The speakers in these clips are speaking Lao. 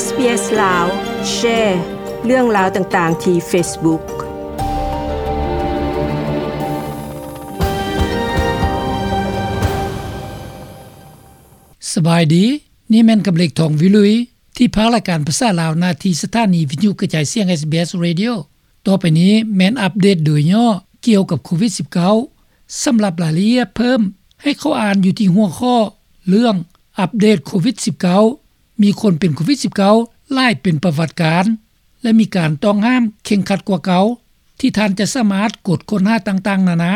ເອສ ລາວ ແຊເລື່ອງລາວຕ່າງໆທີ່ເຟສບຸກ. ສະບາຍດີ, ນີ້ແມ່ນກຳເລັກ ທອງວິລຸຍ ທີ່ພາກລາຍການພາສາລາວ ໜ້າທີ່ສະຖານີວິທະຍຸກະຈາຍສຽງ ເອສບີເອສ Radio. ຕໍ່ໄປນີ້ແມ່ນອັບເດດໂດຍຫຍໍ້ກ່ຽວກັບໂຄວິດສິບເກົ້າ. ສຳລັບລາຍລະອຽດເພີ່ມ, ໃຫ້ເຂົ້າອ່ານຢູ່ທີ່ຫົວຂໍ້ເລື່ອງ ອັບເດດໂຄວິດສິບເກົ້າ ມີຄົນເປັນໂຄວິດສິບເກົ້າຫຼາຍເປັນປະຫວັດການ ແລະ ມີການຕ້ອງຫ້າມເຄັ່ງຄັດກວ່າເກົ່າ ທີ່ທ່ານຈະສາມາດກົດຄົ້ນຫາຕ່າງໆນານາ.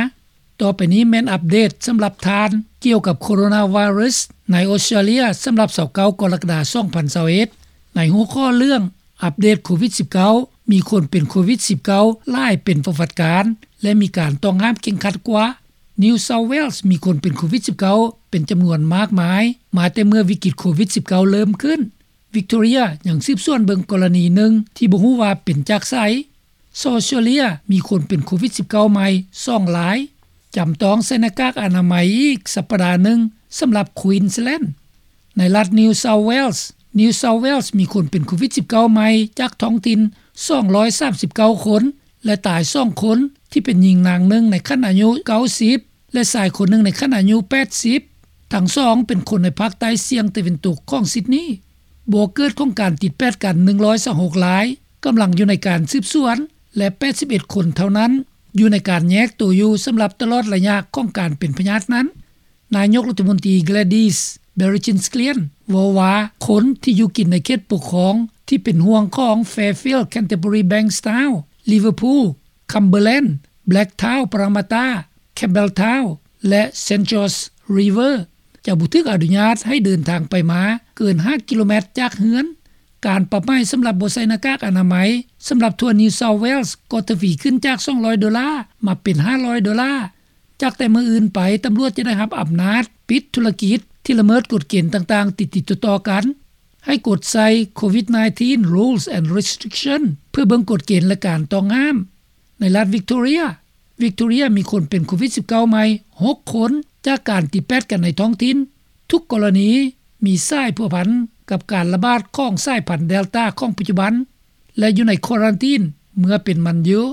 ຕໍ່ໄປນີ້ແມ່ນອັບເດດສຳລັບທ່ານກ່ຽວກັບໂຄໂຣນາໄວຣັສໃນອົດສະຕຣາເລຍ ສຳລັບຊາວເກົ້າກໍລະກະດາ ສອງພັນຊາວເອັດ ໃນຫົວຂໍ້ເລື່ອງ ອັບເດດໂຄວິດສິບເກົ້າ ມີຄົນເປັນໂຄວິດສິບເກົ້າຫຼາຍເປັນປະຫວັດການ ແລະ ມີການຕ້ອງຫ້າມເຄັ່ງຄັດກວ່າ. New South Wales ມີຄົນເປັນໂຄວິດສິບເກົ້າເປັນຈຳນວນມາກມາຍ ມາແຕ່ເມື່ອວິກິດໂຄວິດສິບເກົ້າເລີ່ມຂຶ້ນ. Victoria ຍັງສືບສວນເບິ່ງກໍລະນີໜຶ່ງທີ່ບໍ່ຮູ້ວ່າເປັນຈາກໃສ. ເຊົາອອສເຕຣເລຍ ມີຄົນເປັນໂຄວິດສິບເກົ້າໃໝ່ສອງລາຍ. ຈຳຕ້ອງໃສ່ໜ້າກາກອະນາໄມອີກສັບປະດາໜຶ່ງ ສຳລັບ Queensland. ໃນລັດ New South Wales, New South Wales ມີຄົນເປັນໂຄວິດສິບເກົ້າໃໝ່ຈາກທ້ອງຖິ່ນສອງຮ້ອຍສາມສິບເກົ້າຄົນ ແລະ ຕາຍສອງຄົນ ທີ່ເປັນຍິງນາງໜຶ່ງໃນຂັ້ນອາຍຸເກົ້າສິບ ແລະ ຊາຍຄົນໜຶ່ງໃນຂັ້ນອາຍຸແປດສິບ. ທັງສອງເປັນຄົນໃນພາກໃຕ້ສ່ຽງຕາເວັນຕົກຂອງຊິດນີ. ບໍ່ເກີດຂອງການຕິດແປດກັນໜຶ່ງຮ້ອຍຊາວຫົກລາຍ ກຳລັງຢູ່ໃນການສືບສວນ ແລະ ແປດສິບເອັດຄົນເທົ່ານັ້ນ ຢູ່ໃນການແຍກໂຕຢູ່ສຳລັບຕະຫຼອດໄລຍະຂອງການເປັນພະຍາດນັ້ນ. ນາຍົກລັດຖະມົນຕີ Gladys Berejiklian ເວົ້າວ່າ ຄົນທີ່ຢູ່ກິນໃນເຂດປົກຄອງທີ່ເປັນຫ່ວງຂອງ Fairfield, Canterbury, Bankstown, Liverpool, Cumberland, Blacktown, Parramatta, Campbelltown ແລະ St George River ຈະບໍ່ຖືກອະນຸຍາດໃຫ້ເດີນທາງໄປມາເກີນຫ້າກິໂລແມັດຈາກເຮືອນ. ການປັບໃໝສຳລັບບໍ່ໃສ່ໜ້າກາກອະນາໄມສຳລັບທົ່ວ New South Wales ກໍທະວີຂຶ້ນຈາກສອງຮ້ອຍໂດລາມາເປັນຫ້າຮ້ອຍໂດລາ. ຈາກແຕ່ມື້ອື່ນໄປ, ຕຳຫຼວດຈະໄດ້ຮັບອຳນາດປິດທຸລະກິດທີ່ລະເມີດກົດເກນຕ່າງໆຕິດໆຕໍ່ໆກັນ. ໃຫ້ກົດໃສ່ ໂຄວິດ nineteen Rules and Restriction ເພື່ອເບິ່ງກົດເກນ ແລະ ການຕ້ອງຫ້າມ. ໃນລັດ Victoria, Victoria ມີຄົນເປັນໂຄວິດສິບເກົ້າໃໝ່ຫົກຄົນ ຈາກການຕິດແປດກັນໃນທ້ອງຖິ່ນ. ທຸກກໍລະນີມີສາຍພົວພັນກັບການລະບາດຂອງສາຍພັນ Delta ຂອງປັດຈຸບັນ ແລະ ຢູ່ໃນຄວາຣັນຕີນເມື່ອເປັນມັນຢູ່.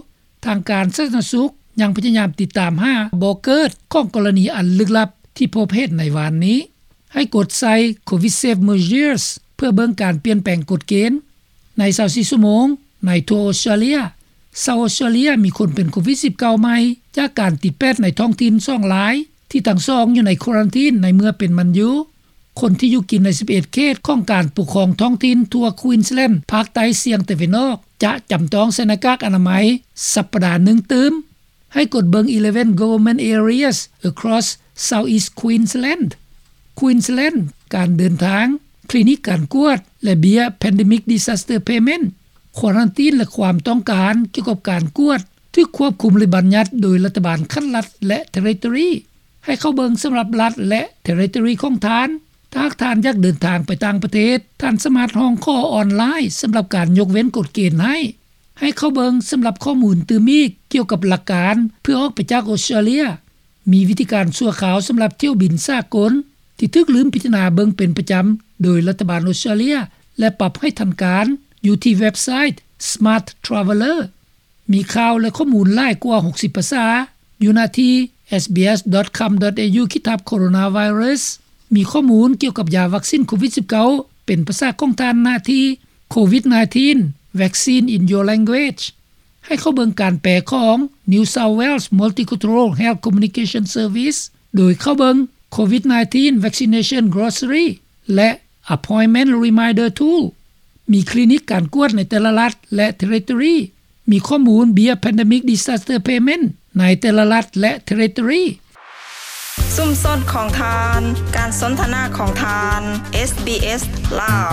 ທາງການສາທາລະນະສຸກຍັງພະຍາຍາມຕິດຕາມຫາບໍ່ເກີດຂອງກໍລະນີອັນລຶກລັບທີ່ພົບເຫັນໃນວານນີ້. ໃຫ້ກົດໃສ່ ໂຄວິດ Safe Measures ເພື່ອເບິ່ງການປ່ຽນແປງກົດເກນ. ໃນຊາວສີ່ຊົ່ວໂມງໃນທົ່ວອົດສະຕຣາເລຍ, ຊາວອົດສະຕຣາເລຍມີຄົນເປັນໂຄວິດສິບເກົ້າໃໝ່ຈາກການຕິດແປດໃນທ້ອງຖິ່ນສອງລາຍ ທີ່ທັງສອງຢູ່ໃນຄວາຣັນຕີນໃນເມື່ອເປັນມັນຢູ່. ຄົນທີ່ຢູ່ກິນໃນສິບເອັດເຂດຂອງການປົກຄອງທ້ອງຖິ່ນທົ່ວ Queensland ພາກໃຕ້ສ່ຽງຕາເວັນອອກ ຈະຈຳຕ້ອງໃສ່ໜ້າກາກອະນາໄມສັບປະດາໜຶ່ງຕື່ມ. ໃຫ້ກົດເບິ່ງ eleven government areas across South East Queensland. Queensland ການເດີນທາງ, ຄລີນິກການກວດ ແລະ ເບ້ຍ Pandemic Disaster Payment. ຄວາຣັນຕີນ ແລະ ຄວາມຕ້ອງການກ່ຽວກັບການກວດຖືກຄວບຄຸມ ຫຼື ບັນຍັດໂດຍລັດຖະບານຂັ້ນລັດ ແລະ Territory. ໃຫ້ເຂົ້າເບິ່ງສຳລັບລັດ ແລະ Territory ຂອງທ່ານ. ຖ້າຫາກທ່ານຢາກເດີນທາງໄປຕ່າງປະເທດ, ທ່ານສາມາດຮ້ອງຂໍອອນລາຍສຳລັບການຍົກເວັ້ນກົດເກນໃຫ້. ໃຫ້ເຂົ້າເບິ່ງສຳລັບຂໍ້ມູນຕື່ມອີກກ່ຽວກັບຫຼັກການເພື່ອອອກໄປຈາກອົດສະຕຣາເລຍ. ມີວິທີການຊົ່ວຄາວສຳລັບຖ້ຽວບິນສາກົນທີ່ຖືກລືມພິຈາລະນາເບິ່ງເປັນປະຈຳໂດຍລັດຖະບານອົດສະຕຣາເລຍ ແລະ ປັບໃຫ້ທັນການ ຢູ່ທີ່ເວັບໄຊ Smart Traveller. ມີຂ່າວ ແລະ ຂໍ້ມູນຫຼາຍກວ່າຫົກສິບພາສາຢູ່ໜ້າທີ່ SBS dot com dot au ຂີດທັບ Coronavirus. ມີຂໍ້ມູນກ່ຽວກັບຢາວັກຊິນໂຄວິດສິບເກົ້າເປັນພາສາຂອງທ່ານໜ້າທີ່ Covid nineteen Vaccine in Your Language. ໃຫ້ເຂົ້າເບິ່ງການແປຂອງ New South Wales Multicultural Health Communication Service ໂດຍເຂົ້າເບິ່ງ Covid nineteen Vaccination Glossary ແລະ Appointment Reminder Tool. ມີຄລີນິກການກວດໃນແຕ່ລະລັດ ແລະ Territory. ມີຂໍ້ມູນເບ້ຍ Pandemic Disaster Payment ໃນແຕ່ລະລັດ ແລະ Territory. ຊຸມຊົນຂອງທ່ານ, ການສົນທະນາຂອງທ່ານ, SBS ລາວ.